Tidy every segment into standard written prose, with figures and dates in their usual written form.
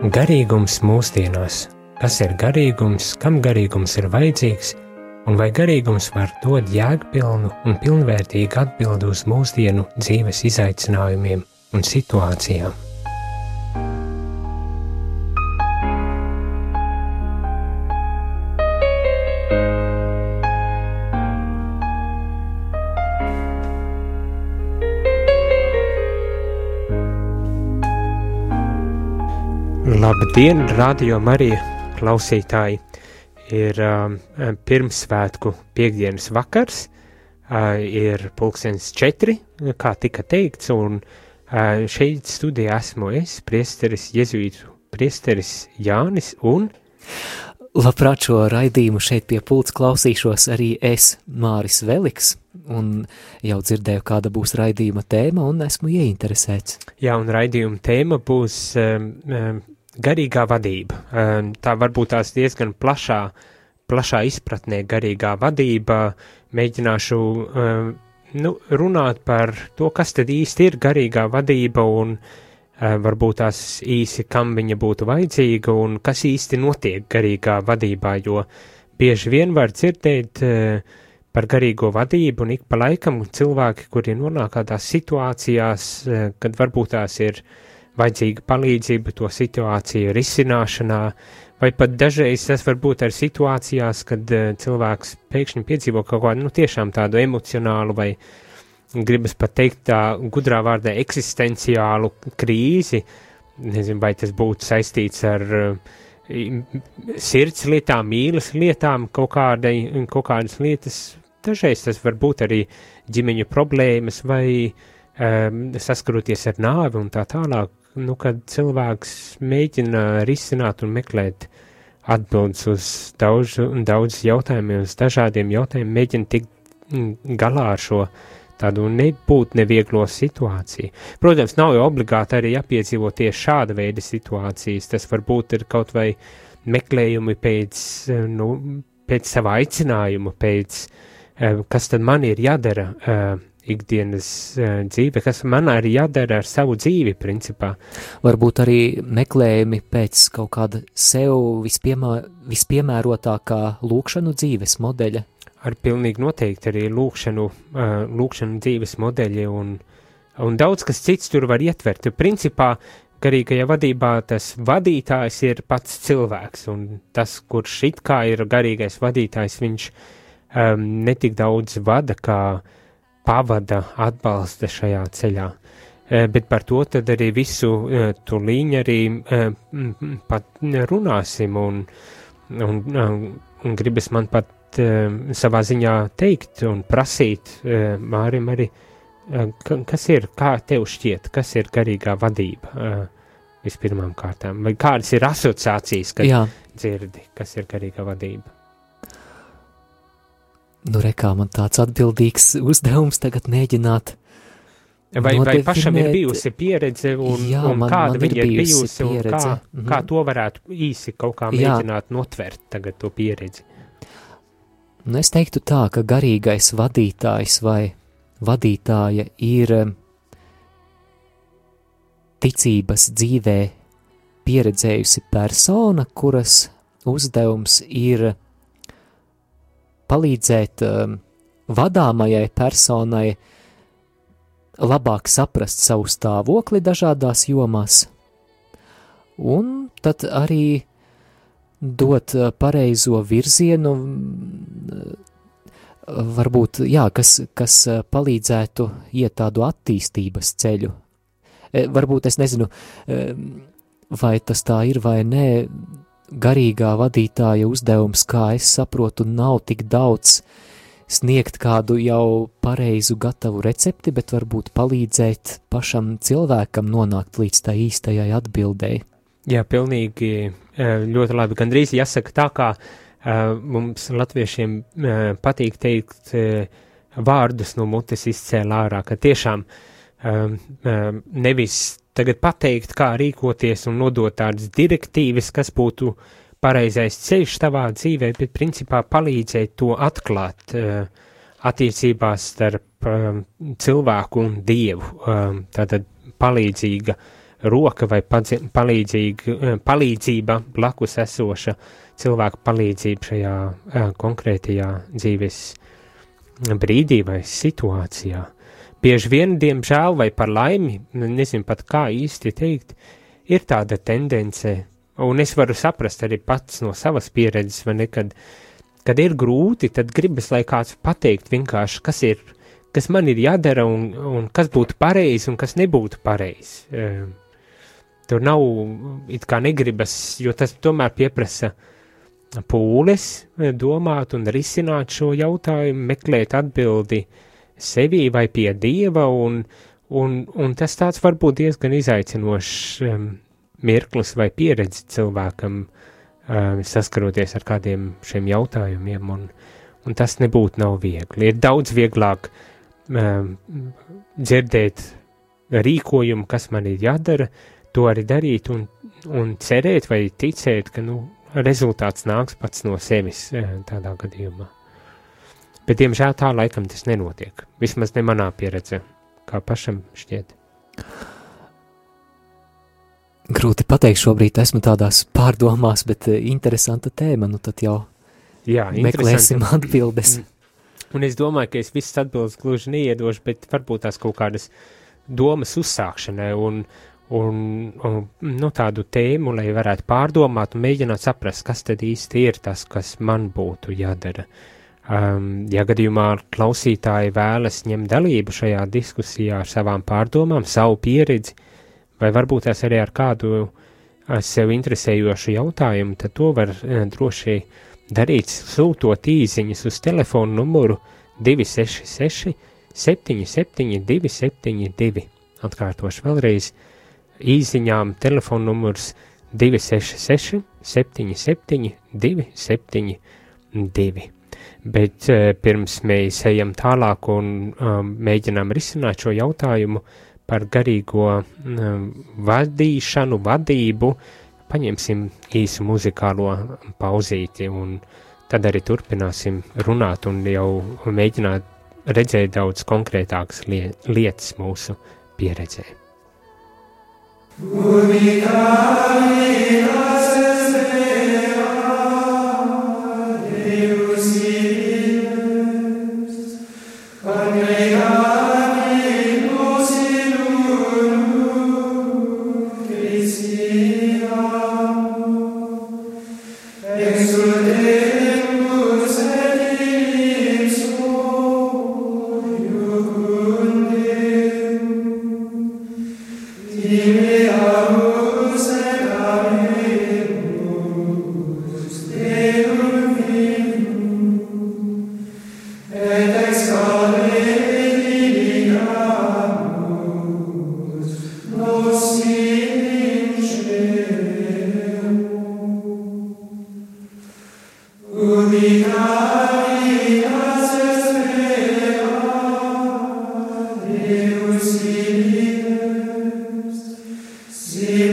Garīgums mūsdienās. Kas ir garīgums, kam garīgums ir vajadzīgs, un vai garīgums var dot jēgpilnu un pilnvērtīgu atbildi uz mūsdienu dzīves izaicinājumiem un situācijām? Labdien, Radio Marija klausītāji! Ir pirmsvētku piektdienas vakars, ir 4:00, kā tika teikts, un šeit studijā esmu es, priesteris, jezuītu priesteris Jānis, un... Labprāt, šo raidījumu šeit pie pults klausīšos arī es, Māris Veliks, un jau dzirdēju, kāda būs raidījuma tēma, un esmu ieinteresēts. Jā, un raidījuma tēma būs... garīgā vadība. Tā varbūt tās diezgan plašā izpratnē garīgā vadība. Mēģināšu runāt par to, kas tad īsti ir garīgā vadība un varbūt tās īsi, kam viņa būtu vajadzīga un kas īsti notiek garīgā vadībā, jo bieži vien var dzirdēt par garīgo vadību un ik pa laikam cilvēki, kuri nonāk kādās situācijās, kad varbūt tās ir vajadzīga palīdzība to situāciju risināšanā, vai pat dažreiz tas var būt ar situācijās, kad cilvēks pēkšņi piedzīvo kaut kādu, tiešām tādu emocionālu vai, gribas pat teikt tā gudrā vārdā, eksistenciālu krīzi, nezinu, vai tas būtu saistīts ar sirds lietām, mīlas lietām, kaut kādas lietas, dažreiz tas var būt arī ģimeņu problēmas vai saskaroties ar nāvi un tā tālāk, kad cilvēks mēģina risināt un meklēt atbildes uz daudz jautājumiem, uz dažādiem jautājumiem, mēģina tikt galā ar šo tādu nebūt nevieglo situāciju. Protams, nav jau obligāti arī jāpiedzīvo tieši šāda veida situācijas, tas varbūt ir kaut vai meklējumi pēc sava aicinājuma, pēc kas tad man ir jādara ikdienas dzīve, kas man arī jādara ar savu dzīvi, principā. Varbūt arī meklējumi pēc kaut kāda sev vispiemērotākā lūkšanu dzīves modeļa. Ar pilnīgi noteikti arī lūkšanu dzīves modeļi un daudz kas cits tur var ietvert. Principā, garīgajā vadībā tas vadītājs ir pats cilvēks, un tas, kurš it kā ir garīgais vadītājs, viņš netik daudz vada, kā pavada atbalsta šajā ceļā. Bet par to tad arī visu tūlīņ arī pat runāsim un gribas man pat savā ziņā teikt un prasīt Mārim arī, kas ir, kā tev šķiet, kas ir garīgā vadība vispirmām kārtām, vai kādas ir asociācijas, kad dzirdi, kas ir garīgā vadība? Rekā man tāds atbildīgs uzdevums tagad mēģināt vai pašam ir bijusi pieredze un kāda viņa ir bijusi pieredze. Un kā to varētu īsi kaut kā mēģināt notvert tagad to pieredzi? Es teiktu tā, ka garīgais vadītājs vai vadītāja ir ticības dzīvē pieredzējusi persona, kuras uzdevums ir palīdzēt vadāmajai personai labāk saprast savu stāvokli dažādās jomās, un tad arī dot pareizo virzienu, varbūt, kas palīdzētu iet tādu attīstības ceļu. Varbūt es nezinu, vai tas tā ir vai nē, garīgā vadītāja uzdevums, kā es saprotu, nav tik daudz sniegt kādu jau pareizu gatavu recepti, bet varbūt palīdzēt pašam cilvēkam nonākt līdz tā īstajai atbildēji. Jā, pilnīgi ļoti labi. Gandrīz jāsaka tā, kā mums latviešiem patīk teikt vārdus no mutes izcēl ārā, ka tiešām nevis tagad pateikt, kā rīkoties un nodot tādas direktīvas, kas būtu pareizais ceļš tavā dzīvē, bet principā palīdzēt to atklāt attiecībās starp cilvēku un Dievu. Tātad palīdzīga roka vai palīdzība blakus esoša cilvēka palīdzība šajā konkrētajā dzīves brīdī vai situācijā. Bieži vien, diemžēl vai par laimi, nezinu pat kā īsti teikt, ir tāda tendence, un es varu saprast arī pats no savas pieredzes, vai ne, kad ir grūti, tad gribas, lai kāds pateikt vienkārši, kas man ir jādara un kas būtu pareizi un kas nebūtu pareizi. Tur nav, it kā negribas, jo tas tomēr pieprasa pūles domāt un risināt šo jautājumu, meklēt atbildi sevī vai pie Dieva, un tas tāds varbūt diezgan izaicinošs mirklis vai pieredzi cilvēkam, saskaroties ar kādiem šiem jautājumiem, un tas nebūtu nav viegli. Ir daudz vieglāk dzirdēt rīkojumu, kas man ir jādara, to arī darīt un cerēt vai ticēt, ka, rezultāts nāks pats no sevis tādā gadījumā. Bet, diemžēl, tā laikam tas nenotiek. Vismaz ne manā pieredzē, kā pašam šķiet. Grūti pateikt, šobrīd esmu tādās pārdomās, bet interesanta tēma, tad jau meklēsim atbildes. Un es domāju, ka es visas atbildes gluži neiedošu, bet varbūt tās kaut kādas domas uzsākšanai un tādu tēmu, lai varētu pārdomāt un mēģināt saprast, kas tad īsti ir tas, kas man būtu jādara. Ja gadījumā klausītāji vēlas ņemt dalību šajā diskusijā ar savām pārdomām, savu pieredzi, vai varbūt tās arī ar kādu sev interesējošu jautājumu, tad to var droši darīt, sūtot īziņas uz telefonu numuru 266 77 272. Atkārtošu vēlreiz, īziņām telefonu numurs 266 77 272. Bet pirms mēs ejam tālāk un mēģinām risināt šo jautājumu par garīgo vadību, paņemsim īsu muzikālo pauzīti un tad arī turpināsim runāt un jau mēģināt redzēt daudz konkrētākas lietas mūsu pieredzē. See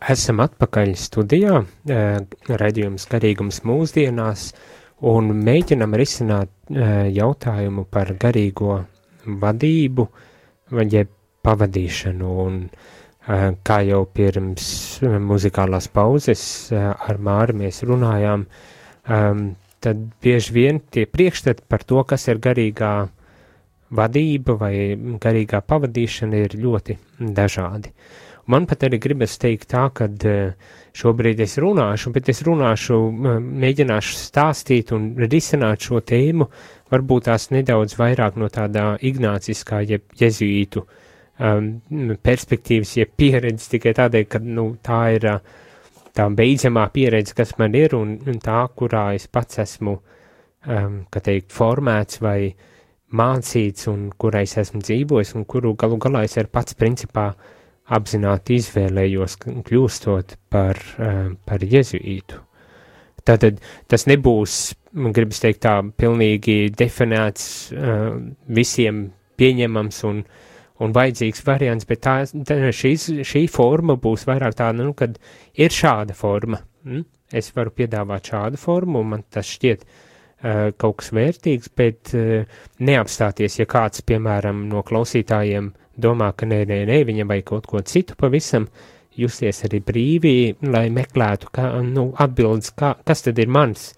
Esam atpakaļ studijā, raidījums Garīgums mūsdienās, un mēģinam risināt jautājumu par garīgo vadību vai pavadīšanu, un kā jau pirms muzikālās pauzes ar Māri mēs runājām, tad bieži vien tie priekšstati par to, kas ir garīgā vadība vai garīgā pavadīšana, ir ļoti dažādi. Man pat arī gribas teikt tā, ka šobrīd es runāšu, bet es mēģināšu stāstīt un risināt šo tēmu, varbūt tās nedaudz vairāk no tādā ignāciskā, jeb jezuītu perspektīvas, jeb pieredzes, tikai tādēļ, ka tā ir tā beidzamā pieredze, kas man ir, un tā, kurā es pats esmu, formēts vai mācīts, un kurā es esmu dzīvojis, un kuru galu galā es ar pats principā apzināti izvēlējos, kļūstot par jezuītu. Tātad tas nebūs, man gribas teikt tā, pilnīgi definēts, visiem pieņemams un vajadzīgs variants, bet šī forma būs vairāk tāda, kad ir šāda forma. Es varu piedāvāt šādu formu, un man tas šķiet kaut kas vērtīgs, bet neapstāties, ja kāds, piemēram, no klausītājiem domā, ka nē, viņam vajag kaut ko citu pavisam, justies arī brīvi, lai meklētu atbildes, kas tad ir mans.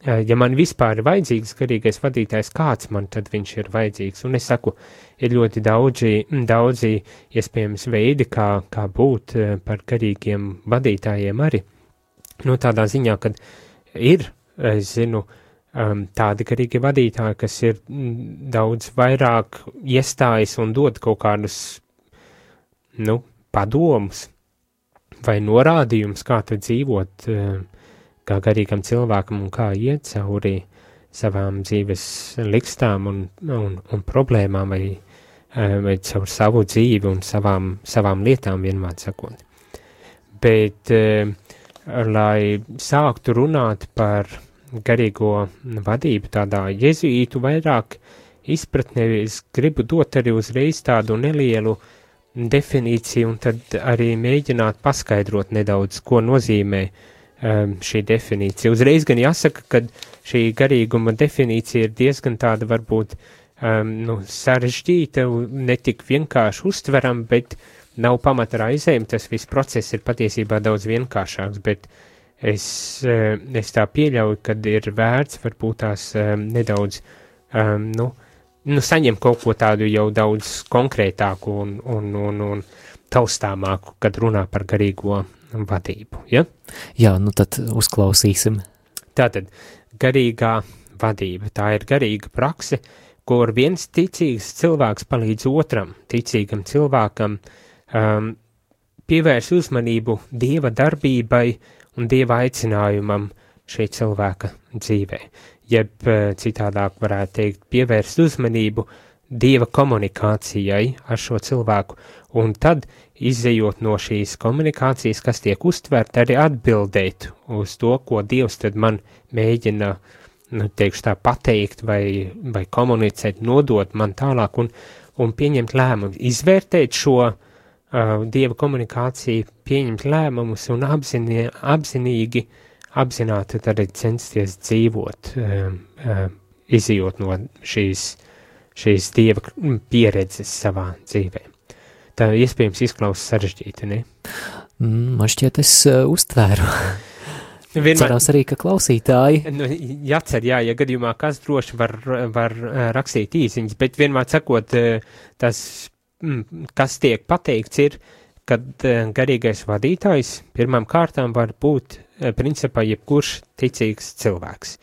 Ja man vispār ir vajadzīgs garīgais vadītājs, kāds man tad viņš ir vajadzīgs? Un es saku, ir ļoti daudzi iespējams veidi, kā būt par garīgiem vadītājiem arī. Tādā ziņā, kad ir, es zinu, tādi garīgi vadītāji, kas ir daudz vairāk iestājas un dod kaut kādus, padomus vai norādījumus, kā tad dzīvot kā garīgam cilvēkam un kā iet cauri savām dzīves likstām un problēmām vai caur savu dzīvi un savām lietām vienmēr sakot. Bet, lai sāktu runāt par garīgo vadību tādā jezuītu vairāk izpratnē, es gribu dot arī uzreiz tādu nelielu definīciju un tad arī mēģināt paskaidrot nedaudz, ko nozīmē šī definīcija. Uzreiz gan jāsaka, ka šī garīguma definīcija ir diezgan tāda varbūt sarežģīta, netik vienkārši uztveram, bet nav pamata raizēm, tas viss process ir patiesībā daudz vienkāršāks, bet es tā pieļauju, kad ir vērts varbūt tās nedaudz, saņem kaut ko tādu jau daudz konkrētāku un taustāmāku, kad runā par garīgo vadību, ja? Jā, tad uzklausīsim. Tātad, garīgā vadība, tā ir garīga prakse, kur viens ticīgs cilvēks palīdz otram ticīgam cilvēkam pievērs uzmanību Dieva darbībai un Dieva aicinājumam šī cilvēka dzīvē. Jeb citādāk varētu teikt, pievērst uzmanību Dieva komunikācijai ar šo cilvēku, un tad, izejot no šīs komunikācijas, kas tiek uztverta, arī atbildēt uz to, ko Dievs tad man mēģina, teikšu tā, pateikt vai komunicēt, nodot man tālāk un pieņemt lēmumu, izvērtēt šo Dieva komunikāciju, pieņemt lēmumus un apzināti tad arī censties dzīvot, izejot no šīs Dieva pieredzes savā dzīvē. Tā iespējams izklausās sarežģīti, ne? Man šķiet, es uztvēru. Cerās arī, ka klausītāji. Jācer, ja gadījumā kas droši var rakstīt īsiņas, bet vienmēr sakot, tas kas tiek pateikts ir, kad garīgais vadītājs pirmām kārtām var būt principā jebkurš ticīgs cilvēks.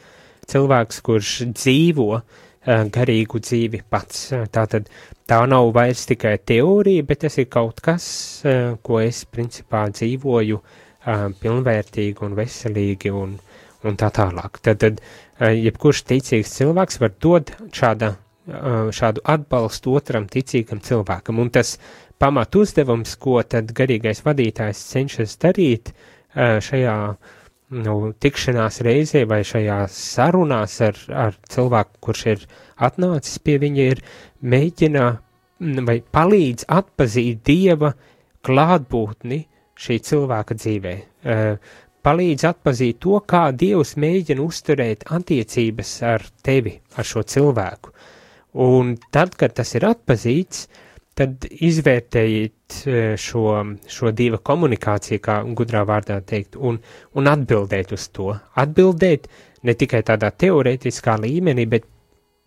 Cilvēks, kurš dzīvo garīgu dzīvi pats. Tātad tā nav vairs tikai teorija, bet tas ir kaut kas, ko es principā dzīvoju pilnvērtīgi un veselīgi un tā tālāk. Tad jebkurš ticīgs cilvēks var dot šādu atbalstu otram ticīgam cilvēkam, un tas pamat uzdevums, ko tad garīgais vadītājs cenšas darīt šajā tikšanās reizē vai šajās sarunās ar cilvēku, kurš ir atnācis pie viņa, ir mēģina vai palīdz atpazīt Dieva klātbūtni šī cilvēka dzīvē, palīdz atpazīt to, kā Dievs mēģina uzturēt attiecības ar tevi, ar šo cilvēku. Un tad, kad tas ir atpazīts, tad izvērtējiet šo Dieva komunikāciju, kā gudrā vārdā teikt, un atbildēt uz to. Atbildēt ne tikai tādā teorētiskā līmenī, bet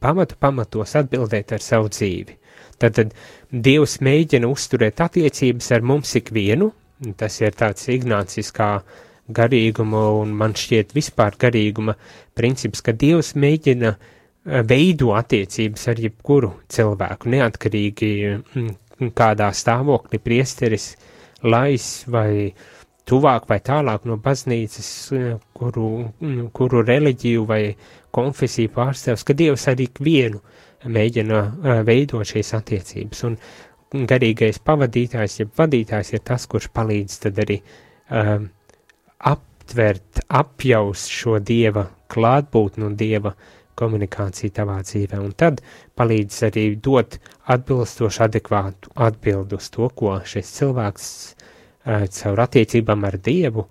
pamatos atbildēt ar savu dzīvi. Tad Dievs mēģina uzturēt attiecības ar mums ikvienu, tas ir tāds ignāciskā garīguma un man šķiet vispār garīguma princips, ka Dievs mēģina veido attiecības ar jebkuru cilvēku, neatkarīgi kādā stāvoklī priesteris lais vai tuvāk vai tālāk no baznīcas, kuru reliģiju vai konfesiju pārstāvs, ka Dievs arī ikvienu mēģina veidot šīs attiecības. Un garīgais pavadītājs, jeb vadītājs ir tas, kurš palīdz tad arī aptvert, apjaust šo Dieva klātbūtni un Dieva komunikāciju tavā dzīvē, un tad palīdz arī dot atbilstoši adekvātu atbildu uz to, ko šis cilvēks caur attiecībām ar Dievu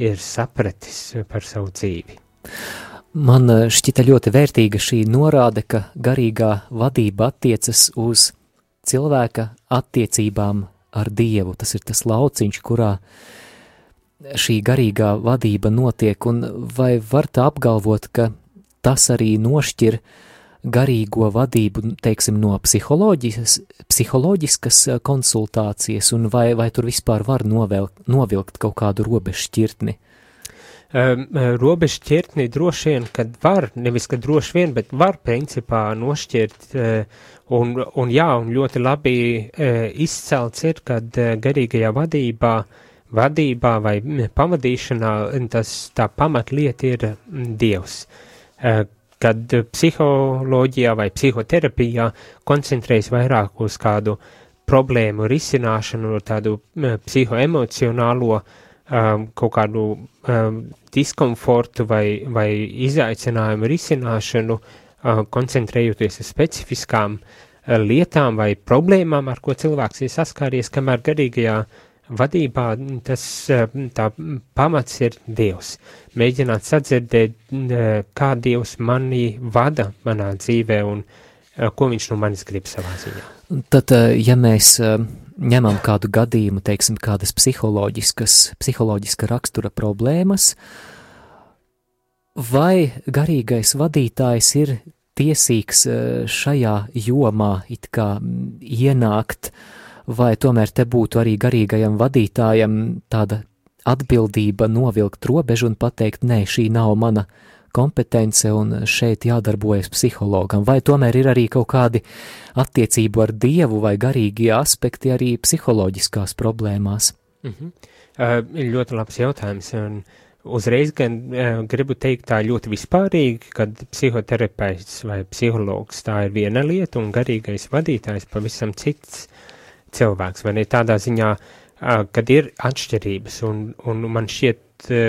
ir sapratis par savu dzīvi. Man šķita ļoti vērtīga šī norāde, ka garīgā vadība attiecas uz cilvēka attiecībām ar Dievu. Tas ir tas lauciņš, kurā šī garīgā vadība notiek, un vai var tā apgalvot, ka tas arī nošķir garīgo vadību, teiksim, no psiholoģiskas konsultācijas, un vai tur vispār var novilkt kaut kādu robežšķirtni? Robežšķirtni droši vien, kad var, nevis kad droši vien, bet var principā nošķirt, un ļoti labi izcelts ir, kad garīgajā vadībā vai pavadīšanā tā pamatlieta ir Dievs. Kad psiholoģijā vai psihoterapijā koncentrējas vairāk uz kādu problēmu risināšanu, tādu psihoemocionālo kaut kādu diskomfortu vai izaicinājumu risināšanu, koncentrējoties uz specifiskām lietām vai problēmām, ar ko cilvēks ir saskāries, kamēr garīgajā vadībā tā pamats ir Dievs. Mēģināt sadzirdēt, kā Dievs mani vada manā dzīvē un ko viņš no manis grib savā ziņā. Tad, ja mēs ņemam kādu gadījumu, teiksim, kādas psiholoģiska rakstura problēmas, vai garīgais vadītājs ir tiesīgs šajā jomā it kā ienākt, vai tomēr te būtu arī garīgajam vadītājam tāda atbildība novilkt robežu un pateikt, nē, šī nav mana kompetence un šeit jādarbojas psihologam, vai tomēr ir arī kaut kādi attiecību ar Dievu vai garīgie aspekti arī psiholoģiskās problēmās? Ir ļoti labs jautājums, un uzreiz gan gribu teikt tā ļoti vispārīgi, kad psihoterapeits vai psihologs tā ir viena lieta un garīgais vadītājs pavisam cits cilvēks, vai ne tādā ziņā, kad ir atšķirības, un man šķiet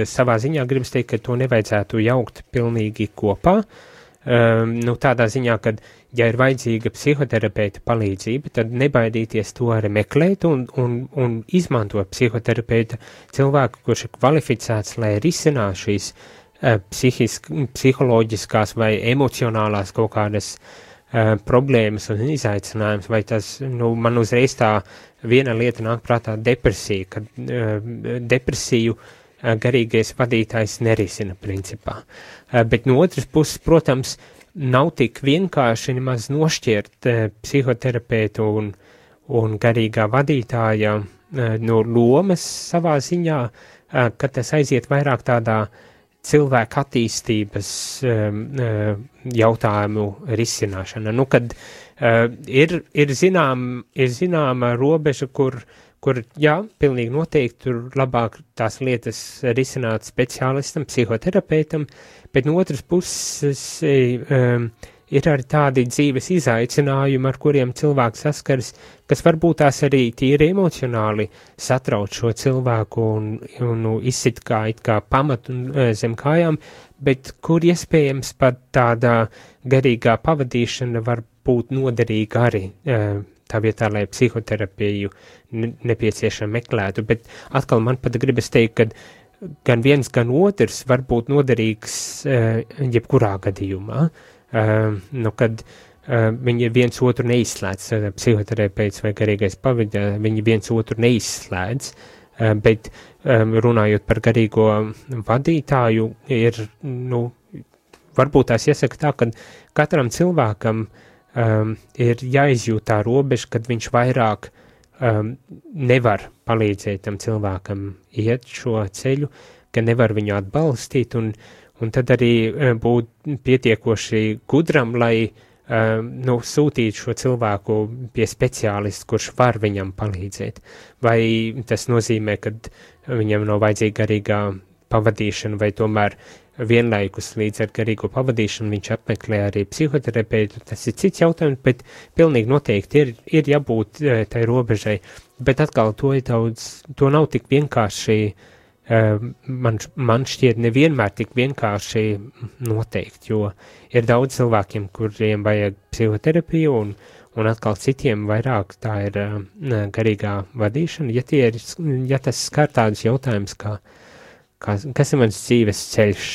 savā ziņā gribas teikt, ka to nevajadzētu jaukt pilnīgi kopā, tādā ziņā, kad, ja ir vajadzīga psihoterapeita palīdzība, tad nebaidīties to arī meklēt un izmantot psihoterapeita cilvēku, kurš ir kvalificēts, lai risinātu šīs psiholoģiskās vai emocionālās kaut kādas problēmas un izaicinājums, vai tas, man uzreiz tā viena lieta nāk prātā depresija, kad depresiju garīgais vadītājs nerisina principā. Bet no otras puses, protams, nav tik vienkārši nemaz nošķirt psihoterapeitu un garīgā vadītāja no lomas savā ziņā, ka tas aiziet vairāk tādā cilvēka attīstības jautājumu risināšana. Kad ir zināma robeža, kur jā, pilnīgi noteikti tur labāk tās lietas risināt speciālistam, psihoterapeitam, bet no otras puses ir arī tādi dzīves izaicinājumi, ar kuriem cilvēks saskaras, kas varbūt tās arī tīri emocionāli satrauc šo cilvēku un izsit kā pamatu zem kājām, bet kur iespējams pat tāda garīgā pavadīšana var būt noderīga arī tā vietā, lai psihoterapiju nepieciešami meklētu, bet atkal man pat gribas teikt, ka gan viens, gan otrs var būt noderīgs jebkurā gadījumā, kad viņi viens otru neizslēdz, psihoterapeits vai garīgais pavadītājs, viņi viens otru neizslēdz, bet runājot par garīgo vadītāju, ir, varbūt tās jāsaka tā, ka katram cilvēkam ir jāizjūt tā robeža, kad viņš vairāk nevar palīdzēt tam cilvēkam iet šo ceļu, ka nevar viņu atbalstīt, un tad arī būt pietiekoši gudram, lai sūtīt šo cilvēku pie speciālista, kurš var viņam palīdzēt. Vai tas nozīmē, ka viņam nav vajadzīga garīgā pavadīšana, vai tomēr vienlaikus līdz ar garīgo pavadīšanu viņš apmeklē arī psihoterapeitu, tas ir cits jautājums, bet pilnīgi noteikti ir jābūt tai robežai, bet atkal to nav tik vienkārši, man šķiet nevienmēr tik vienkārši noteikt, jo ir daudz cilvēkiem, kuriem vajag psihoterapiju, un atkal citiem vairāk tā ir garīgā vadīšana, ja tas skar tādus jautājumus, kas ir mans dzīves ceļš,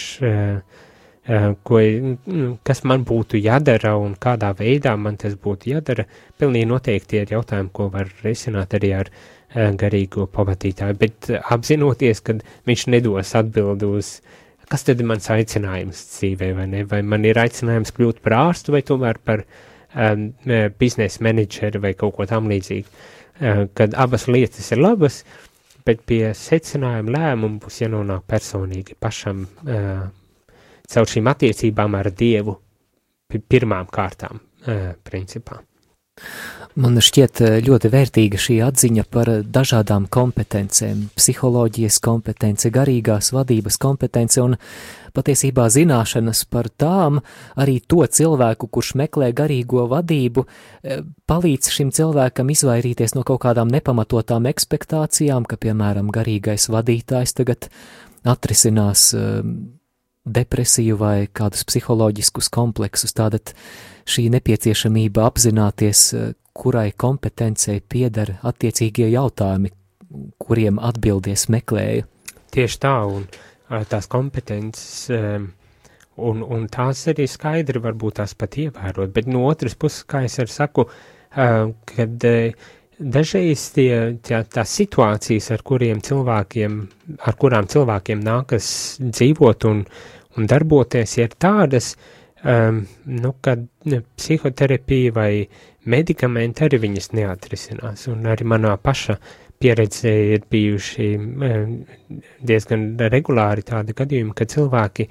kas man būtu jādara un kādā veidā man tas būtu jādara, pilnīgi noteikti ir jautājumi, ko var risināt arī ar garīgo pavadītāju, bet apzinoties, ka viņš nedos atbildi uz, kas tad ir mans aicinājums dzīvē, vai ne, vai man ir aicinājums kļūt par ārstu, vai tomēr par biznesa menedžeri vai kaut ko tam līdzīgi, kad abas lietas ir labas, bet pie secinājuma lēmumu būs jānonāk personīgi pašam caur šīm attiecībām ar Dievu pirmām kārtām, principā. Man šķiet ļoti vērtīga šī atziņa par dažādām kompetencēm, psiholoģijas kompetence, garīgās vadības kompetence un patiesībā zināšanas par tām, arī to cilvēku, kurš meklē garīgo vadību, palīdz šim cilvēkam izvairīties no kaut kādām nepamatotām ekspektācijām, ka, piemēram, garīgais vadītājs tagad atrisinās depresiju vai kādus psiholoģiskus kompleksus, tātad šī nepieciešamība apzināties, kurai kompetencei pieder attiecīgie jautājumi, kuriem atbildies meklēju. Tieši tā, un tās kompetences, un tās arī skaidri varbūt tās pat ievērot, bet no otras puses, kā es arī saku, kad dažreiz tās situācijas, ar kurām cilvēkiem nākas dzīvot un darboties, ir tādas, kad psihoterapija vai medikamenti arī viņas neatrisinās, un arī manā paša pieredze ir bijuši diezgan regulāri tādi gadījumi, ka cilvēki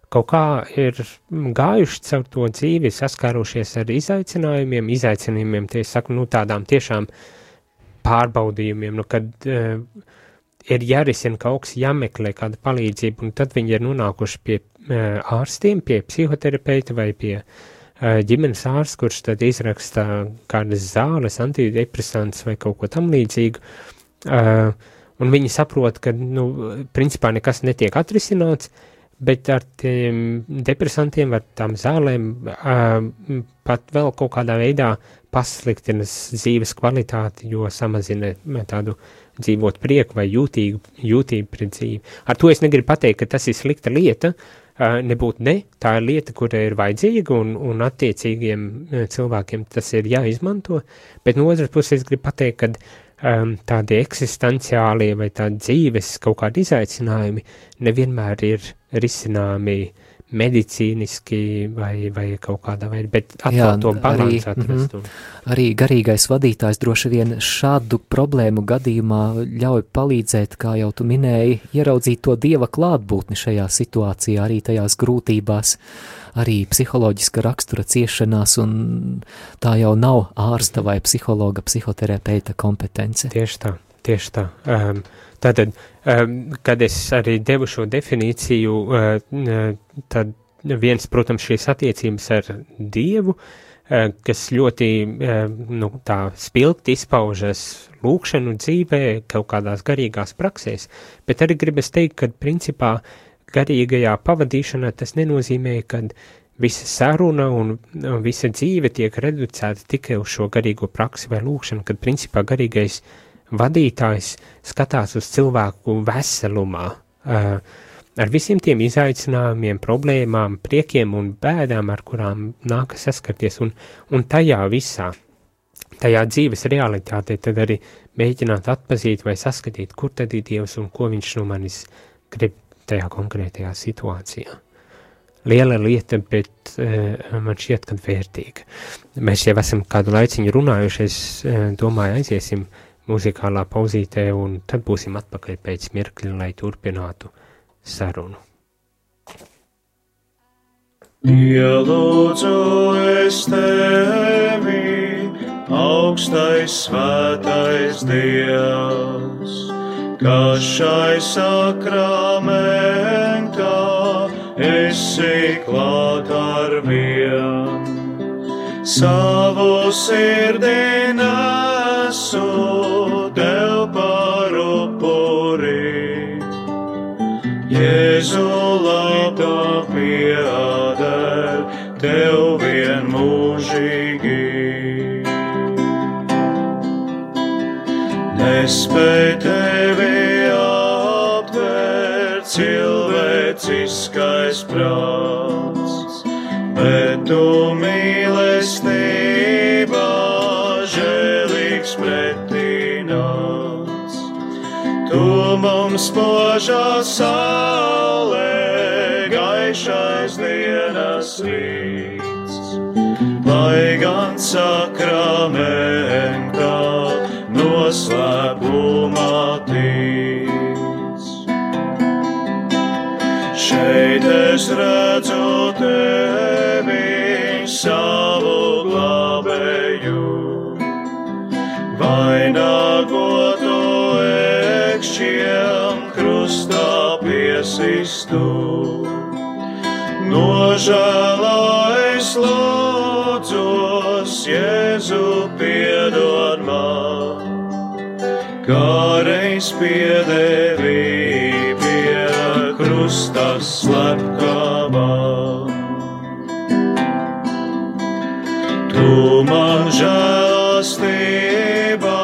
kaut kā ir gājuši caur to dzīvi, saskārušies ar izaicinājumiem, tie saku, tādām tiešām pārbaudījumiem, kad ir jārisina kaut kas, jāmeklē kāda palīdzība, un tad viņi ir nonākuši pie ārstiem, pie psihoterapeita vai pie ģimenes ārsta, kurš tad izraksta kādas zāles, antidepresants vai kaut ko tam līdzīgu, un viņi saprot, ka, principā nekas netiek atrisināts, bet ar tiem depresantiem, ar tām zālēm pat vēl kaut kādā veidā pasliktinas dzīves kvalitāti, jo samazina tādu dzīvot prieku vai jūtību pret dzīvi. Ar to es negribu pateikt, ka tas ir slikta lieta, nebūtu ne, tā ir lieta, kura ir vajadzīga un attiecīgiem cilvēkiem tas ir jāizmanto, bet no otras puses es gribu pateikt, ka tādi eksistenciālie vai tādi dzīves kaut kādi izaicinājumi nevienmēr ir risināmi medicīniski vai kaut kādā veidā, bet atkal to balansu atrast. Arī garīgais vadītājs droši vien šādu problēmu gadījumā ļauj palīdzēt, kā jau tu minēji, ieraudzīt to Dieva klātbūtni šajā situācijā, arī tajās grūtībās, arī psiholoģiska rakstura ciešanās, un tā jau nav ārsta vai psihologa, psihoterapeita kompetence. Tieši tā. Tātad, kad es arī devu šo definīciju, tad viens, protams, šīs attiecības ar Dievu, kas ļoti tā spilgti izpaužas lūkšanu dzīvē, kaut kādās garīgās praksēs, bet arī gribas teikt, ka principā garīgajā pavadīšanā tas nenozīmē, ka visa saruna un visa dzīve tiek reducēta tikai uz šo garīgo praksi vai lūkšanu, kad principā garīgais vadītājs skatās uz cilvēku veselumā, ar visiem tiem izaicinājumiem, problēmām, priekiem un bēdām, ar kurām nākas saskarties, un tajā visā, tajā dzīves realitātē tad arī mēģināt atpazīt vai saskatīt, kur tad ir Dievs un ko viņš no manis grib tajā konkrētajā situācijā. Liela lieta, bet man šķiet, kad vērtīga. Mēs jau esam kādu laiciņu runājuši, es domāju, aiziesim muzikālā pauzītē, un tad būsim atpakaļ pēc mirkļa, lai turpinātu sarunu. Ielūdzu es tevi, augstais svētais Dievs, kas šai sakramentā esi klāt ar vien. Savu sirdī nesu tev par upuri, Jēzu labā pieder tev vienmūžīgi. Nespēj tevi aptvērt cilvēciskais prāts, bet tu mīlestībā žēlīgs pretīnāts. Tu mums spožā saulē, gaišais dienas rīts, lai gan sakramentā noslēpumā tic. Šeit es redzu tevi, savu glābēju, vainagotu ekšķiem krustā piesistu. Nožēlā es lūdzos, Jēzu piedod man, kā reiz piedēvi pie krusta slepkavā. Tu man žēlastībā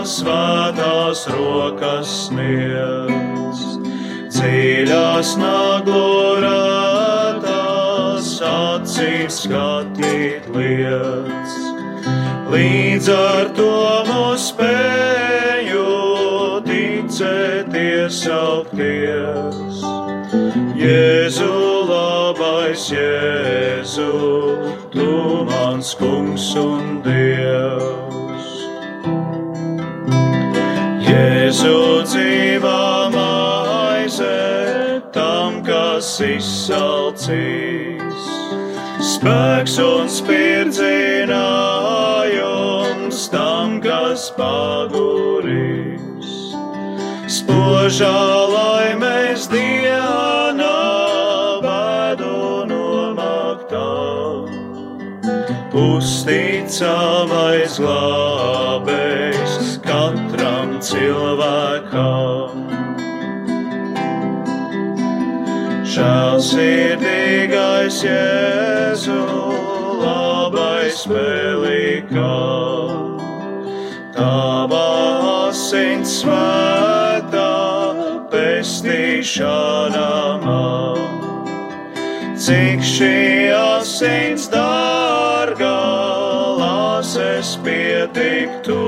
svētās rokas sniedz, dziļās naglorētās acīs skatīt liec. Līdz ar to mūs spēju ticēties augties. Jēzu, labais Jēzu, tu mans kungs un Dievs. Jēzu, dzīvā maize tam, kas izsalcīs, spēks un spirdzinājums tam, kas pagurīs. Spožā laimēs dienā bēdu nomaktā, uzticamais glābējs katram cilvēkam. Žēlsirdīgais Jēzu, labais Velikā, tava asins svētā pestīšana man. Cik šī asins dārgā, lāses pietiktu,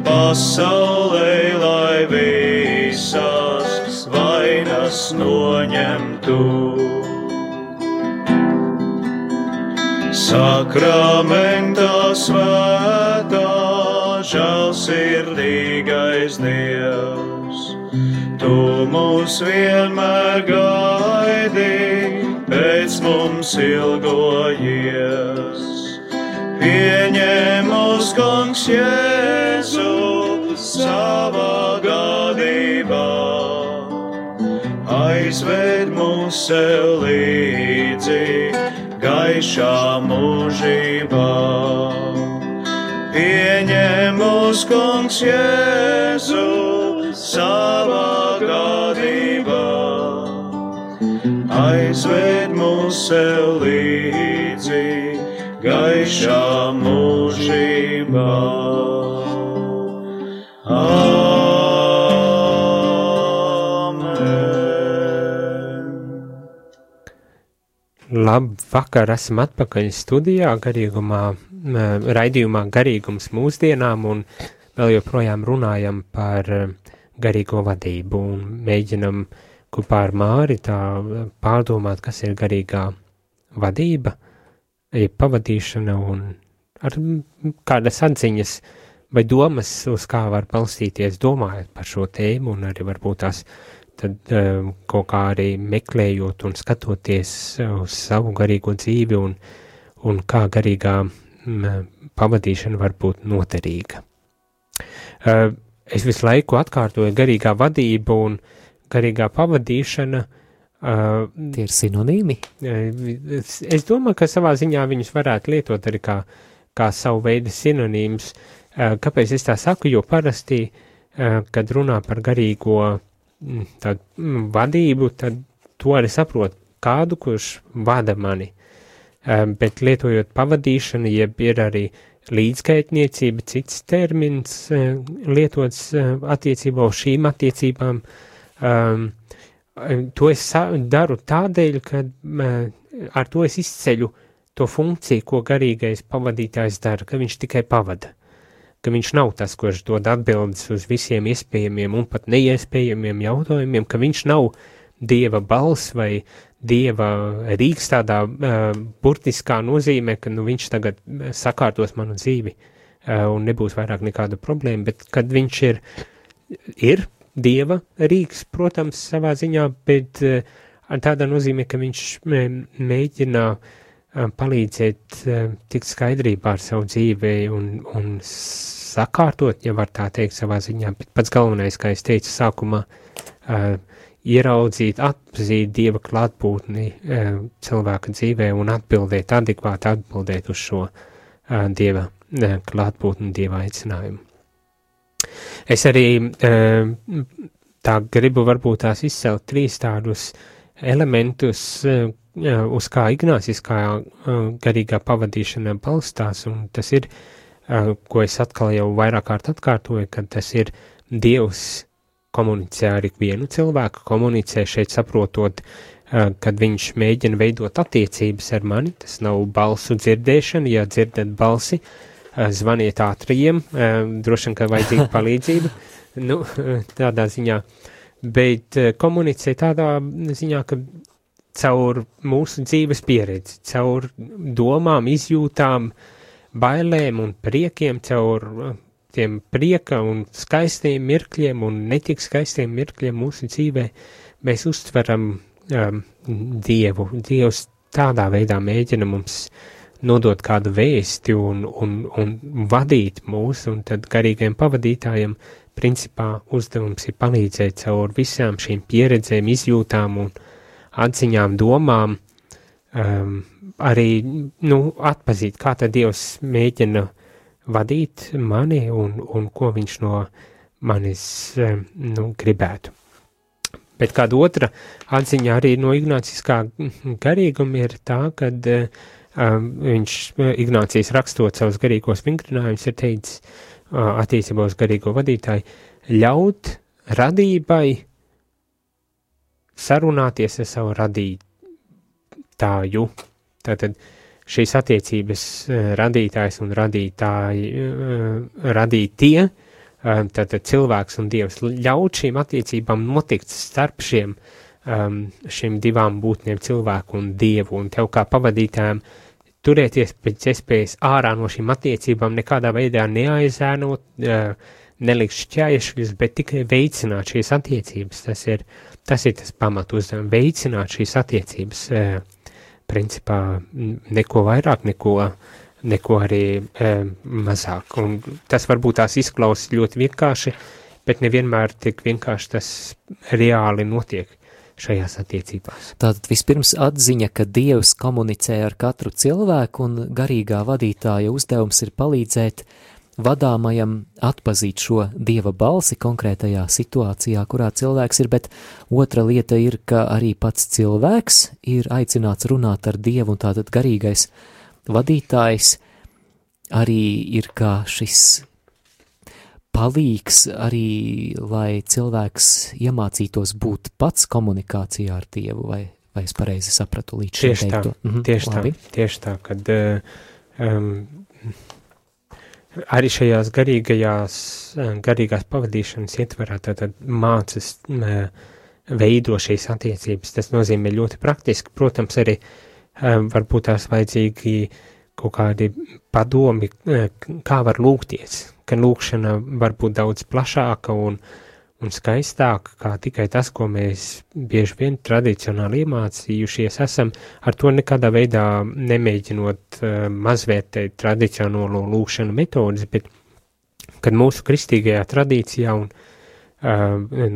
pasaulē, lai visas vainas noņemtu. Sakramentā svētā, žēlsirdīgais Dievs, tu mūs vienmēr gaidi, pēc mums ilgojies. Pieņem mūs, kungs Jēzu, savā gadībā, aizved mūs sev līdzi gaišā mūžībā. Pieņem mūs, kungs Jēzu, savā gadībā, aizved mūs sev līdzi gaišā mūžībā. Labvakar, esam atpakaļ studijā raidījumā Garīgums mūsdienām un vēl joprojām runājam par garīgo vadību un mēģinam kopā ar Māri tā pārdomāt, kas ir garīgā vadība, pavadīšana un ar kādas atziņas vai domas, uz kā var balstīties domājot par šo tēmu un arī varbūt tās tad kaut kā arī meklējot un skatoties uz savu garīgo dzīvi un kā garīgā pavadīšana var būt noderīga. Es visu laiku atkārtoju garīgā vadība un garīgā pavadīšana. Tie ir sinonīmi? Es domāju, ka savā ziņā viņus varētu lietot arī kā savu veidu sinonīmus. Kāpēc es tā saku? Jo parasti, kad runā par garīgo vadību, tad to arī saprot kādu, kurš vada mani. Bet lietojot pavadīšanu, jeb ir arī līdzgaitniecība, cits termins lietots attiecībā uz šīm attiecībām. To es daru tādēļ, ka ar to es izceļu to funkciju, ko garīgais pavadītājs dara, ka viņš tikai pavada. Ka viņš nav tas, kurš dod atbildes uz visiem iespējamiem un pat neiespējamiem jautājumiem, ka viņš nav Dieva balss vai Dieva rīks tādā burtiskā nozīmē, ka viņš tagad sakārtos manu dzīvi un nebūs vairāk nekāda problēma, bet kad viņš ir Dieva rīks, protams, savā ziņā, bet tādā nozīmē, ka viņš mēģina palīdzēt tikt skaidrībā ar savu dzīvi un sakārtot, ja var tā teikt savā ziņā, bet pats galvenais, kā es teicu sākumā, ieraudzīt, atpazīt Dieva klātbūtni cilvēka dzīvē un adekvāti atbildēt uz šo Dieva klātbūtni, Dieva aicinājumu. Es arī tā gribu varbūt tās izcelt 3 tādus elementus, uz kā ignāciskā garīgā pavadīšana balstās, un tas ir, ko es atkal jau vairāk kārt atkārtoju, ka tas ir Dievs komunicē ar ikvienu cilvēku, komunicē šeit saprotot, kad viņš mēģina veidot attiecības ar mani, tas nav balsu dzirdēšana, ja dzirdat balsi, zvaniet ātrajiem, droši vien, ka vajadzīga palīdzība, tādā ziņā, bet komunicē tādā ziņā, ka caur mūsu dzīves pieredzi, caur domām, izjūtām, bailēm un priekiem, caur tiem prieka un skaistiem mirkļiem un netik skaistiem mirkļiem mūsu dzīvē, mēs uztveram Dievu. Dievs tādā veidā mēģina mums nodot kādu vēsti un vadīt mūs, un tad garīgajiem pavadītājiem principā uzdevums ir palīdzēt caur visām šīm pieredzēm, izjūtām un atziņām, domām, arī atpazīt, kā tad Dievs mēģina vadīt mani un ko viņš no manis gribētu. Bet kāda otra atziņa arī no ignāciskā garīguma ir tā, kad Ignācijas rakstot savus garīgos vingrinājumus ir teicis attiecībā uz garīgo vadītāju, ļaut radībai sarunāties ar savu radītāju. Tātad šīs attiecības radītājs un radītie, tātad cilvēks un Dievs, ļaut šīm attiecībām notikt starp šiem divām būtnēm, cilvēku un Dievu, un tev kā pavadītājiem turēties pēc iespējas ārā no šīm attiecībām, nekādā veidā neaizēnot, nelikt šķēršļus, bet tikai veicināt šīs attiecības. Tas ir tas pamat uzdevums, veicināt šīs attiecības, principā neko vairāk, neko arī mazāk. Un tas varbūt tās izklausās ļoti vienkārši, bet nevienmēr tik vienkārši tas reāli notiek šajās attiecībās. Tātad vispirms atziņa, ka Dievs komunicē ar katru cilvēku un garīgā vadītāja uzdevums ir palīdzēt vadāmajam atpazīt šo Dieva balsi konkrētajā situācijā, kurā cilvēks ir, bet otra lieta ir, ka arī pats cilvēks ir aicināts runāt ar Dievu, un tātad garīgais vadītājs arī ir kā šis palīgs arī, lai cilvēks iemācītos būt pats komunikācijā ar Dievu, vai es pareizi sapratu līdz šim teikto? Tieši tā, kad arī šajās garīgās pavadīšanas ietverā tātad mācas veido šīs attiecības. Tas nozīmē ļoti praktiski. Protams, arī varbūt tās vajadzīgi kaut kādi padomi, kā var lūgties, ka lūgšana var būt daudz plašāka un skaistāka, kā tikai tas, ko mēs bieži vien tradicionāli iemācījušies esam, ar to nekādā veidā nemēģinot mazvērtēt tradicionālo lūgšanu metodas, bet kad mūsu kristīgajā tradīcijā un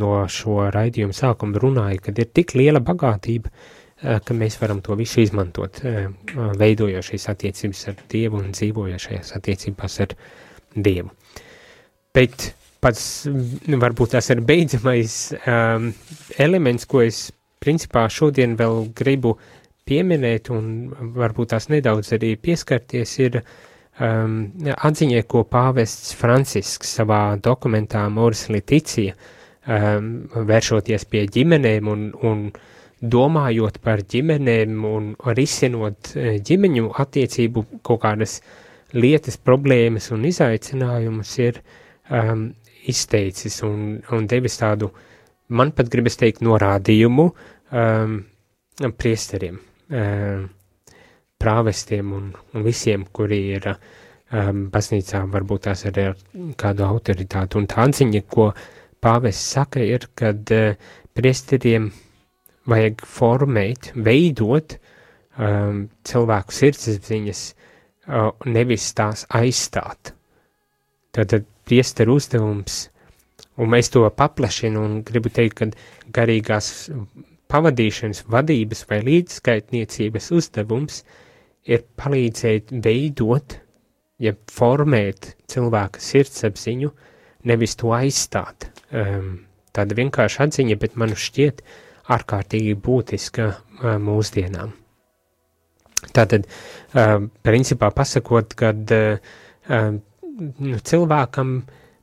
no šo raidījumu sākuma runāja, kad ir tik liela bagātība, ka mēs varam to visu izmantot, veidojot šīs attiecības ar Dievu un dzīvojot šajās attiecībās ar Dievu. Bet pats varbūt tas ir beidzamais elements, ko es principā šodien vēl gribu pieminēt un varbūt tās nedaudz arī pieskarties, ir atziņai, ko pāvests Francisks savā dokumentā Amoris Laetitia, vēršoties pie ģimenēm un domājot par ģimenēm un risinot ģimeņu attiecību kaut kādas lietas, problēmas un izaicinājumus, ir izteicis un devis tādu, man pat gribas teikt, norādījumu priesteriem, prāvestiem un visiem, kuri ir baznīcā, varbūt tās arī ar kādu autoritāti. Un tā atziņa, ko pāvests saka, ir, kad priesteriem vajag formēt, veidot cilvēku sirdsapziņas, nevis tās aizstāt. Tātad priesteru uzdevums, un mēs to paplašinu un gribu teikt, ka garīgās pavadīšanas, vadības vai līdzskaitniecības uzdevums ir palīdzēt veidot, ja formēt cilvēka sirdsapziņu, nevis to aizstāt. Tāda vienkārši atziņa, bet man šķiet ārkārtīgi būtiska mūsdienām. Tātad, principā pasakot, kad cilvēkam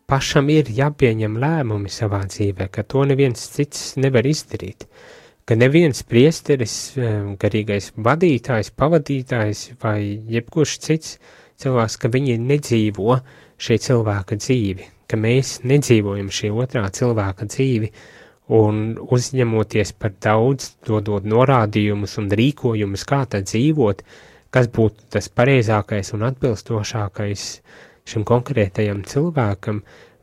pašam ir jāpieņem lēmumi savā dzīvē, ka to neviens cits nevar izdarīt, ka neviens priesteris, garīgais vadītājs, pavadītājs vai jebkurš cits cilvēks, ka viņi nedzīvo šī cilvēka dzīvi, ka mēs nedzīvojam šī otrā cilvēka dzīvi un uzņemoties par daudz, dodot norādījumus un rīkojumus, kā tad dzīvot, kas būtu tas pareizākais un atbilstošākais šim konkrētajam cilvēkam,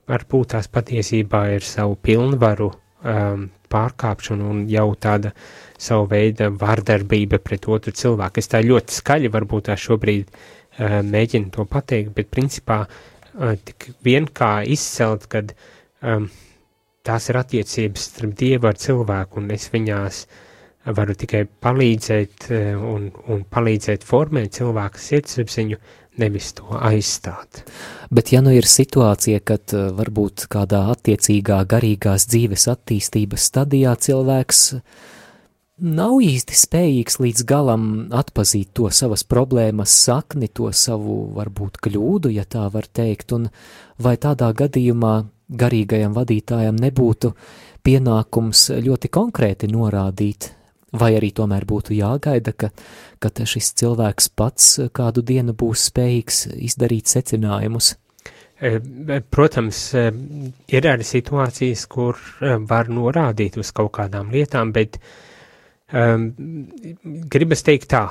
varbūt tās patiesībā ir savu pilnvaru pārkāpšanu un jau tāda savu veida vardarbība pret otru cilvēku. Es tā ļoti skaļi varbūt tā šobrīd mēģinu to pateikt, bet principā tik vien kā izcelt, kad tās ir attiecības starp Dievu ar cilvēku, un es viņās varu tikai palīdzēt un palīdzēt formēt cilvēka sirdsapziņu, nevis to aizstāt. Bet ja nu ir situācija, kad varbūt kādā attiecīgā garīgās dzīves attīstības stadijā cilvēks nav īsti spējīgs līdz galam atpazīt to savas problēmas sakni, to savu varbūt kļūdu, ja tā var teikt, un vai tādā gadījumā garīgajam vadītājam nebūtu pienākums ļoti konkrēti norādīt, vai arī tomēr būtu jāgaida, ka šis cilvēks pats kādu dienu būs spējīgs izdarīt secinājumus? Protams, ir arī situācijas, kur var norādīt uz kaut kādām lietām, bet gribas teikt tā,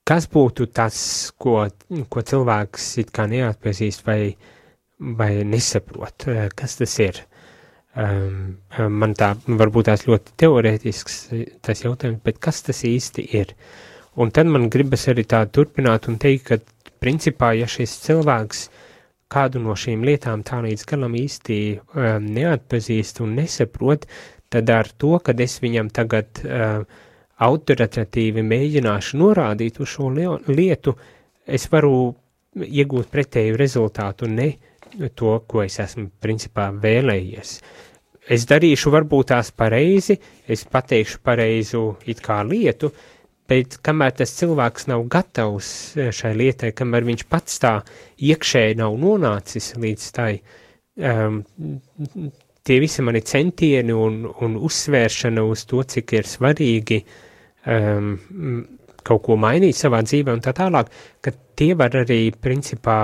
kas būtu tas, ko cilvēks it kā neatpazīst vai nesaprot, kas tas ir? Man tā varbūt tās ļoti teorētisks tas jautājums, bet kas tas īsti ir? Un tad man gribas arī tā turpināt un teikt, ka principā, ja šis cilvēks kādu no šīm lietām tā līdz galam īsti neatpazīst un nesaprot, tad ar to, kad es viņam tagad autoritatīvi mēģināšu norādīt uz šo lietu, es varu iegūt pretēju rezultātu, ne to, ko es esmu principā vēlējies. Es darīšu varbūt tās pareizi, es pateikšu pareizu it kā lietu, bet kamēr tas cilvēks nav gatavs šai lietai, kamēr viņš pats tā iekšēji nav nonācis līdz tai, tie visi mani centieni un uzsvēršana uz to, cik ir svarīgi kaut ko mainīt savā dzīvē un tā tālāk, ka tie var arī principā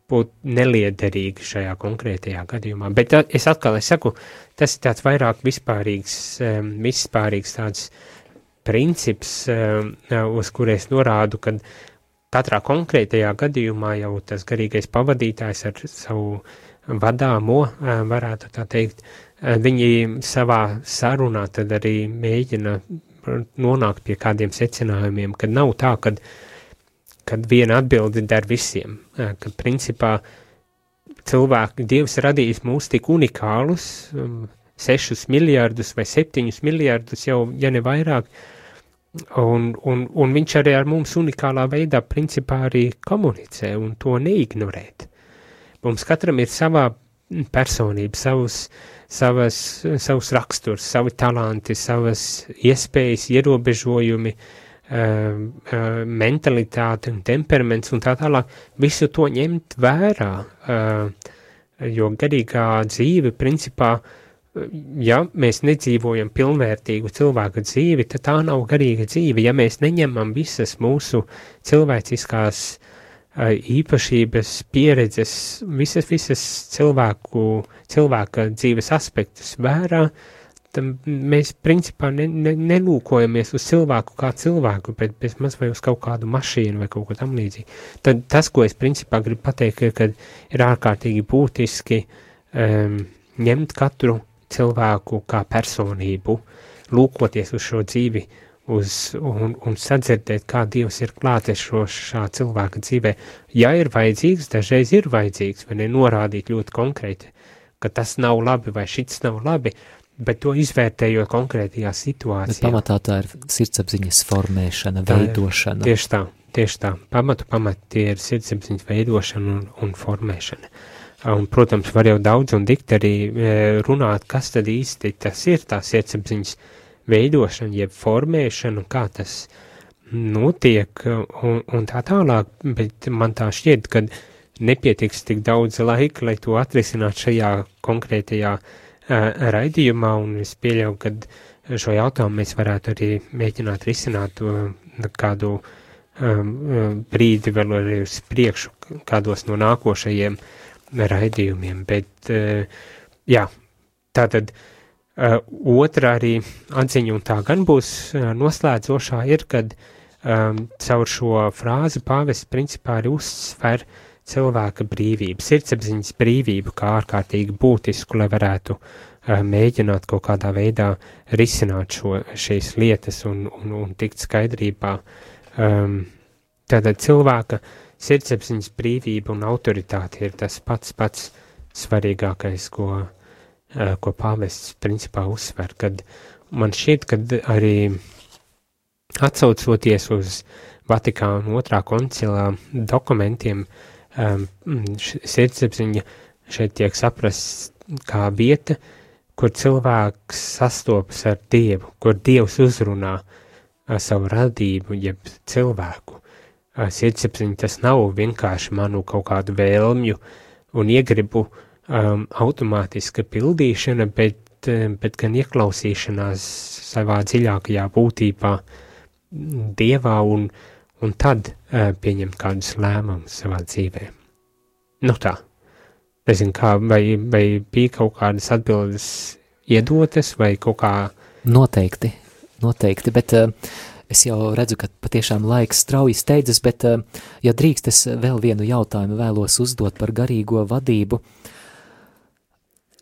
būt neliederīgi šajā konkrētajā gadījumā. Bet es saku, tas ir tāds vairāk vispārīgs tāds princips, uz kur es norādu, kad katrā konkrētajā gadījumā jau tas garīgais pavadītājs ar savu vadāmo, varētu tā teikt, viņi savā sarunā tad arī mēģina nonākt pie kādiem secinājumiem, kad nav tā, kad viena atbildi der visiem, kad principā Dievs radījis mūs tik unikālus, 6 miljardus vai 7 miljardus jau, ja ne vairāk, un viņš arī ar mums unikālā veidā principā arī komunicē un to neignorēt. Mums katram ir savā personība, savus raksturs, savi talanti, savas iespējas, ierobežojumi, mentalitāte un temperaments un tā tālāk, visu to ņemt vērā, jo garīgā dzīve principā, ja mēs nedzīvojam pilnvērtīgu cilvēka dzīvi, tad tā nav garīga dzīve, ja mēs neņemam visas mūsu cilvēciskās īpašības, pieredzes, visas cilvēka dzīves aspektus vērā, tad mēs principā nelūkojamies uz cilvēku kā cilvēku, bet bezmaz vai uz kaut kādu mašīnu vai kaut ko tam līdzīgi. Tad tas, ko es principā gribu pateikt, ka ir ārkārtīgi būtiski ņemt katru cilvēku kā personību, lūkoties uz šo dzīvi, un sadzirdēt, kā Dievs ir klātesošā cilvēka dzīvē. Ja ir vajadzīgs, dažreiz ir vajadzīgs, vai nenorādīt ļoti konkrēti, ka tas nav labi vai šits nav labi, bet to izvērtējot konkrētajā situācijā. Bet pamatā tā ir sirdsapziņas formēšana, veidošana. Tieši tā. Pamat tie ir sirdsapziņas veidošana un formēšana. Un, protams, var jau daudz un dikt arī runāt, kas tad īsti tas ir tā sirdsapziņas veidošana, jeb formēšana, kā tas notiek un tā tālāk, bet man tā šķiet, ka nepietiks tik daudz laika, lai to atrisināt šajā konkrētajā raidījumā, un es pieļauju, ka šo jautājumu mēs varētu arī mēģināt risināt kādu brīdi vēl arī uz priekšu, kādos no nākošajiem raidījumiem, bet jā, tātad otra arī atziņa, un tā gan būs noslēdzošā, ir, kad caur šo frāzi pāvests principā arī uzsver cilvēka brīvību, sirdsapziņas brīvību kā ārkārtīgi būtisku, lai varētu mēģināt kaut kādā veidā risināt šīs lietas un tikt skaidrībā. Tātad cilvēka sirdsapziņas brīvība un autoritāte ir tas pats svarīgākais, ko pāvests principā uzsver, kad man šķiet, kad arī atsaucoties uz Vatikāna 2. koncilā dokumentiem, sirdsapziņa šeit tiek saprasts kā vieta, kur cilvēks sastopas ar Dievu, kur Dievs uzrunā savu radību, jeb cilvēku. Sirdsapziņa tas nav vienkārši manu kaut kādu vēlmju un iegribu automātiska pildīšana, bet gan ieklausīšanās savā dziļākajā būtībā Dievā un tad pieņemt kādus lēmumus savā dzīvē. Nu tā, nezinu kā, vai bija kaut kādas atbildes iedotas, vai kaut kā... Noteikti, bet es jau redzu, ka patiešām laiks strauji steidzas, bet, ja drīkst, es vēl vienu jautājumu vēlos uzdot par garīgo vadību.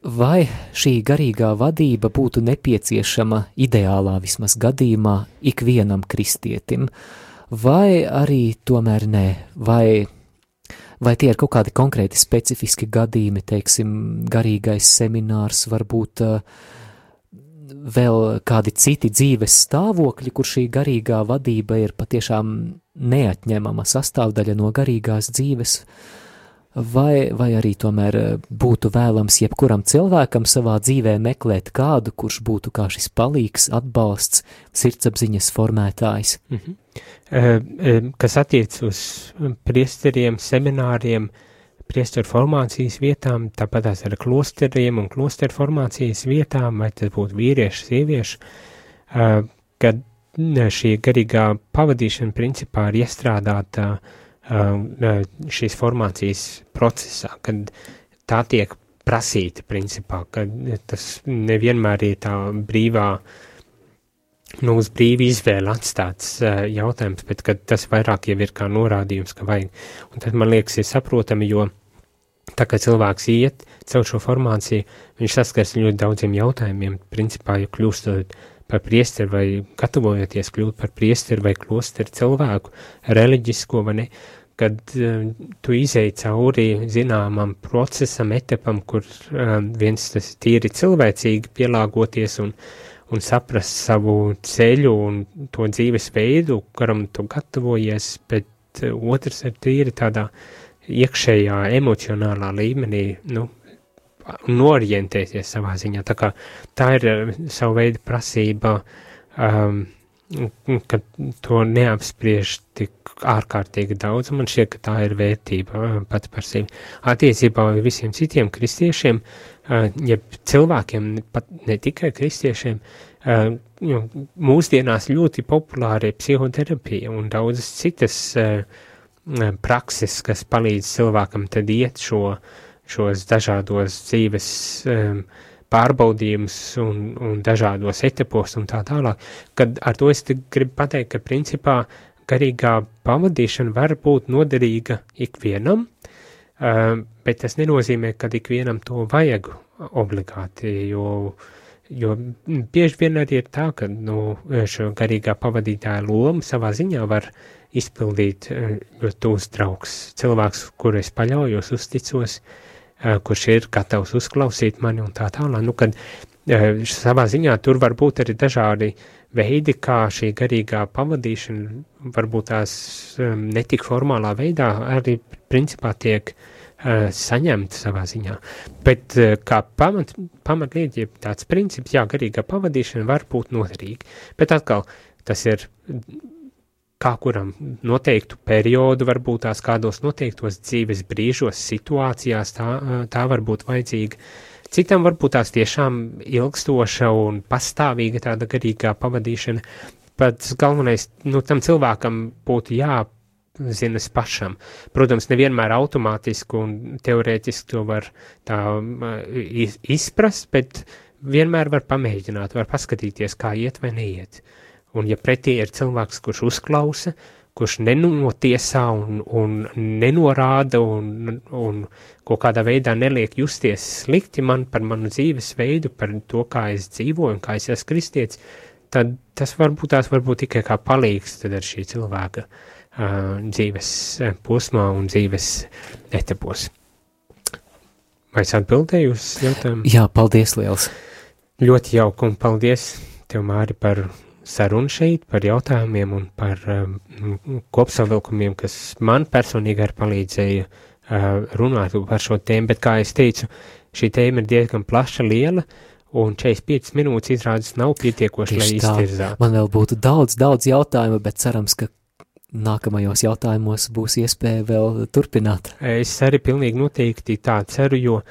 Vai šī garīgā vadība būtu nepieciešama ideālā vismaz gadījumā ikvienam kristietim, vai arī tomēr nē, vai tie ir kaut kādi konkrēti specifiski gadījumi, teiksim, garīgais seminārs, varbūt vēl kādi citi dzīves stāvokļi, kur šī garīgā vadība ir patiešām neatņemama sastāvdaļa no garīgās dzīves, vai arī tomēr būtu vēlams jebkuram cilvēkam savā dzīvē meklēt kādu, kurš būtu kā šis palīgs, atbalsts, sirdsapziņas formētājs? Kas attiec uz priesteriem, semināriem, priesteru formācijas vietām, tāpat tās ar klosteriem un klosteru formācijas vietām, vai tas būtu vīrieši, sievieši, kad šī garīgā pavadīšana principā ir iestrādāta šīs formācijas procesā, kad tā tiek prasīta principā, kad tas nevienmēr ir tā brīvā, uz brīvu izvēli atstāts jautājums, bet kad tas vairāk jau ir kā norādījums, ka vajag. Un tad, man liekas, ir saprotami, jo tā kā cilvēks iet caur šo formāciju, viņš saskars ļoti daudziem jautājumiem, principā, ja kļūstot par priesteri vai gatavojoties kļūt par priesteri vai klosteru cilvēku, reliģisko vai ne, kad tu izēji cauri zināmam procesam, etapam, kur viens tas tīri cilvēcīgi pielāgoties un saprast savu ceļu un to dzīves veidu, kuram tu gatavojies, bet otrs ir tīri tādā iekšējā emocionālā līmenī, norientēties savā ziņā. Tā kā tā ir savu veidu prasība, ka to neapspriež tik ārkārtīgi daudz, un man šķiet, ka tā ir vērtība pati par sevi. Attiecībā visiem citiem kristiešiem, ja cilvēkiem, pat ne tikai kristiešiem, mūsdienās ļoti populāra ir psihoterapija un daudzas citas prakses, kas palīdz cilvēkam tad iet šos dažādos dzīves pārbaudījumus un dažādos etapos un tā tālāk, kad ar to es gribu pateikt, ka principā garīgā pavadīšana var būt noderīga ikvienam, bet tas nenozīmē, ka ikvienam to vajag obligāti, jo bieži vien arī ir tā, ka šo garīgā pavadītāja lomu savā ziņā var izpildīt ļoti tūs draugs, cilvēks, kuru es paļaujos, uzticos, kurš ir gatavs uzklausīt mani un tā tālāk. Kad savā ziņā tur var būt arī dažādi veidi, kā šī garīgā pavadīšana varbūt tās netik formālā veidā arī principā tiek saņemta savā ziņā. Bet kā pamatlieta, ja tāds princips, jā, garīgā pavadīšana var būt noderīga. Bet atkal, tas ir kā kuram noteiktu periodu, varbūt tās kādos noteiktos dzīves brīžos, situācijās, tā var būt vajadzīga. Citam varbūt tās tiešām ilgstoša un pastāvīga tāda garīgā pavadīšana. Pats galvenais, tam cilvēkam būtu jāzinas pašam. Protams, nevienmēr automātiski un teorētiski to var tā izprast, bet vienmēr var pamēģināt, var paskatīties, kā iet vai neiet. Un ja pretī ir cilvēks, kurš uzklausa, kurš nenotiesā un nenorāda un kaut kādā veidā neliek justies slikti par manu dzīves veidu, par to, kā es dzīvoju un kā es esmu kristietis, tad tas varbūt tikai kā palīgs tad ar šī cilvēka dzīves posmā un dzīves etapos. Vai es atbildēju uz jautājumu? Jā, paldies liels. Ļoti jauki un paldies tev, Māri, par sarunu šeit, par jautājumiem un par kopsavilkumiem, kas man personīgi arī palīdzēja runāt par šo tēmu, bet kā es teicu, šī tēma ir diezgan plaša, liela, un 45 minūtes izrādes nav pietiekoši, lai iztirzātu. Man vēl būtu daudz jautājumu, bet cerams, ka nākamajos jautājumos būs iespēja vēl turpināt. Es arī pilnīgi noteikti tā ceru, jo,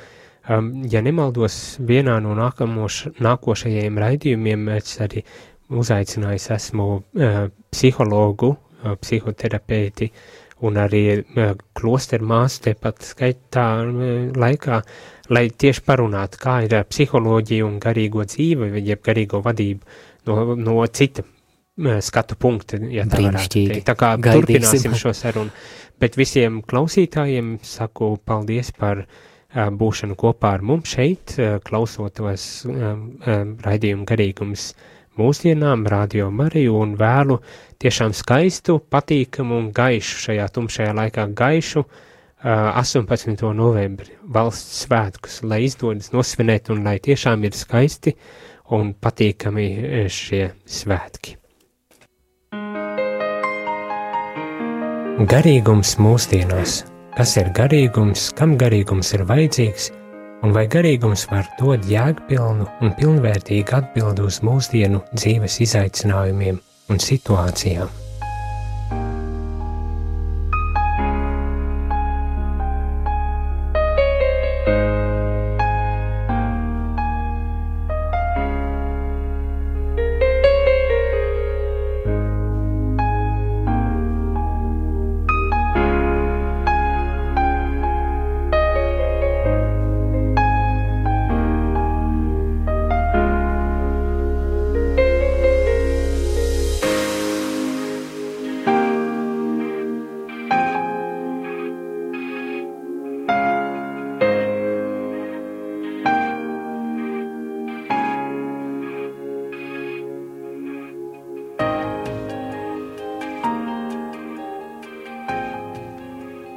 ja nemaldos, vienā no nākošajiem raidījumiem es arī uzaicinājis esmu psihologu, psihoterapeiti un arī klosteru māsu tepat skaitā laikā, lai tieši parunātu, kā ir psiholoģija un garīgo dzīvi, jeb garīgo vadību no cita skatu punkta, ja tā varētu teikt. Tā kā turpināsim šo sarunu. Bet visiem klausītājiem saku paldies par būšanu kopā ar mums šeit, klausotos raidījumu garīgums mūsdienām, Radio Mariju, un vēlu tiešām skaistu, patīkamu un gaišu šajā tumšajā laikā gaišu 18. novembri valsts svētkus, lai izdodas nosvinēt un lai tiešām ir skaisti un patīkami šie svētki. Garīgums mūsdienās. Kas ir garīgums, kam garīgums ir vajadzīgs, un vai garīgums var dot jēgpilnu un pilnvērtīgu atbildi uz mūsdienu dzīves izaicinājumiem un situācijām?